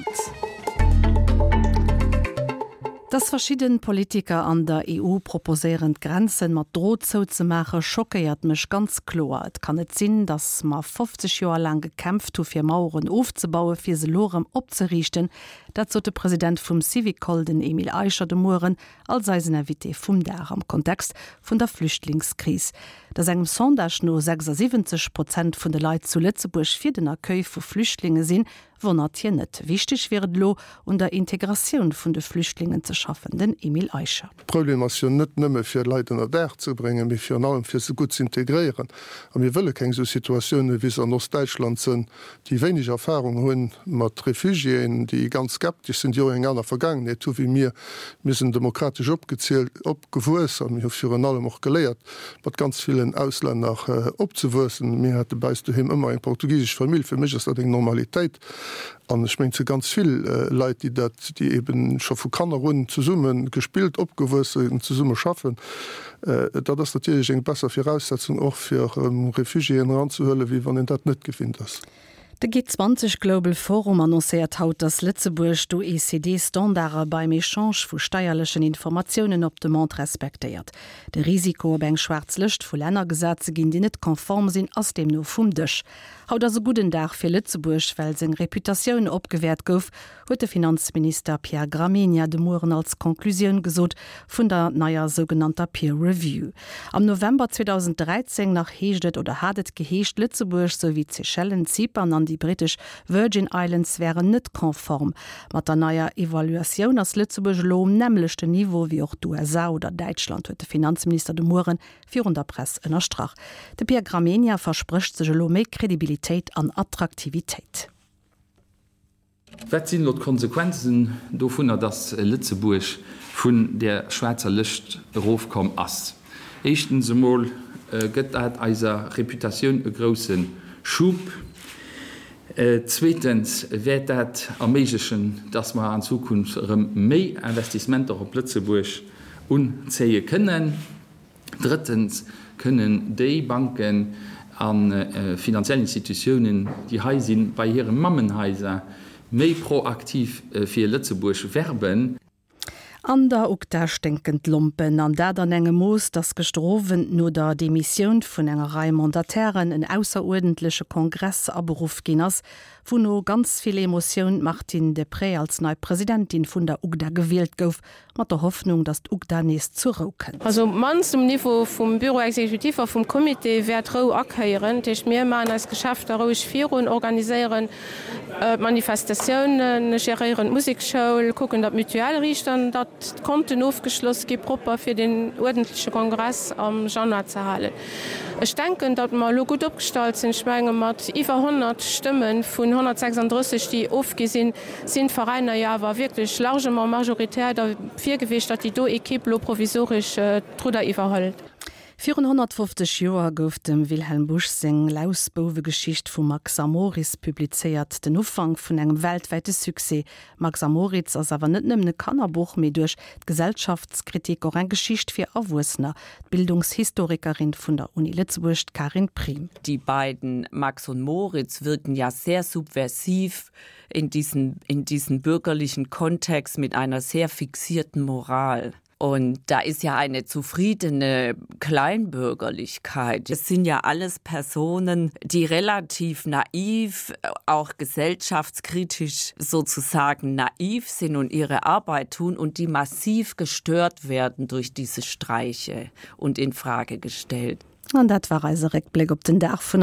Owend. Dass verschidden Politiker an der EU proposéieren d'Grenzen mat Drot zouzemaachen, schockéiert mech ganz kloer. Et kann net sinn, dass mer 50 Joer laang gekämpft hu fir Maueren ofzebauen, fir se elo erëm opzeriichten. Dat sot de President vum Syvicol, den Emile Eicher, de Mueren als eisen Invité vum Dag am Kontext vun der Flüchtlingskris. Dass engem Sondage no 76 Prozent vun de Leit zu Lëtzebuerg fir den Accueil vu Flüchtlinge sinn, wonnert hien net. Wichteg wier et elo, un der Integratioun vun de Flüchtlingen ze schaffen. Den Emile Eicher. De Problem ass jo net nëmme fir Leit ënner Daach ze bréngen, mee virun allem fir se gutt z'integréieren. A mir wëlle keng esou Situatiounen, wéi se an Ostdäitschland sënn, déi wéineg Erfahrung hu mat Refugiéen, déi ganz skeptesch sinn, déi och eng aner Vergaangenheet hu wéi mir. Mir sinn demokratesch opgezielt, opgewuess a mir hu virun allem och geléiert, mat ganz villen Auslänner opzewuessen. Mir hate bei eis doheem ëmmer eng portugisesch Famill. Fir mech ass dat eng Normalitéit an ech mengen, et si ganz vill Leit, déi dat, déi eeben scho vu Kanner un zesumme gespillt, opgewuess sinn, zesumme schaffen. Dat ass natierlech eng besser Viraussetzung och fir Refugiéen eranzehuelen, wéi wann een dat net gewinnt ass. De G20 Global Forum annoncéiert haut, datt Lëtzebuerg d'OECD-Standarde beim Echange vu steierlechen Informatiounen op Demande respektéiert. De Risiko, op eng schwaarz Lëscht vu Länner gesat ze ginn, déi net konform sinn, ass deemno vum Dësch. Haut ass e gudden Dag fir Lëtzebuerg, well seng Reputatioun opgewäert gouf, huet de Finanzminister Pierre Gramegna de Mueren als Conclusioun gesot vun der neier sougenannter Peer Review. Am November 2013 nach heescht et oder hat et geheescht, Lëtzebuerg souwéi d'Seychellen, Zypern an déi brittesch Virgin Islands wären net konform. Mat der neier Evaluatioun ass Lëtzebuerg elo um nämmlechten Niveau wéi och d'USA oder Däitschland, huet de Finanzminister de Muere virun der Press ënnerstrach. De Pierre Gramegna versprécht sech elo méi Kredibilitéit an Attraktivitéit. Wat sinn elo d'Konsequenzen dovunner, dass Lëtzebuerg vun där schwaarzer Lëscht erofkomm ass? Éischtens emol gëtt dat eiser Reputatioun e grousse Schub. Zweetens wäert dat erméiglechen, dass mer an Zukunft erëm méi Investissementer op Lëtzebuerg unzéie kënnen. Drëttens kënnen déi Banken a finanziell Institutiounen, déi hei sinn, bei hire Mammenhaiser méi proaktiv fir Lëtzebuerg werben. An der UGDA sténken d'Lompen, an dat an engem Mooss, datt gëschter Owend no der Demissioun vun enger Rei Mandatairen en ausseruerdentleche Kongress aberuff ginn ass, wou no ganz vill Emotioun d'Martine Deprez als nei Presidentin vun der UGDA gewielt gouf. Mat der Hoffnung, datt d'UGDA nees zur Rou kënnt. Also op d'mannst um Niveau vum Bureau exécutif a vum Comité wäert Rou akéieren. Dat heescht, mir maachen eis Geschäfter roueg virun, organiséieren d'Manifestatiounen, geréieren d'Musekschoul, kucken, datt d'Mutuelle riicht an datt d'Konten ofgeschloss gi propper, fir deen uerdentleche Kongress am Januar ze halen. Ech denken, datt mer elo gutt opgestallt sinn. Ech menge mat iwwer 100 Stëmme vun 136, déi ofgi sinn, sinn d'Veräiner jo awer wierklech largement majoritaire derfir gewiescht, datt déi do Equipe elo provisoresch d'Rudder iwwerhëlt. Virun 150 Joer gouf dem Wilhelm Busch seng Lausbouwegeschicht vu Max a Moris publizéiert, den Ufank vun engem weltwäite Succès. Max a Moritz ass awer net nëmmen e Kannerbuch, mee duerch d'Gesellschaftskritik och eng Geschicht fir Erwuessener. D'Bildungshistorikerin vun der Uni Lëtzebuerg, d'Karin Priem. Die beiden Max und Moritz wirken ja sehr subversiv in diesen, in diesen bürgerlichen Kontext mit einer sehr fixierten Moral. Und da ist ja eine zufriedene Kleinbürgerlichkeit. Es sind ja alles Personen, die relativ naiv, auch gesellschaftskritisch sozusagen naiv sind und ihre Arbeit tun und die massiv gestört werden durch diese Streiche und in Frage gestellt. An dat war eise Réckbléck op den Dag vun.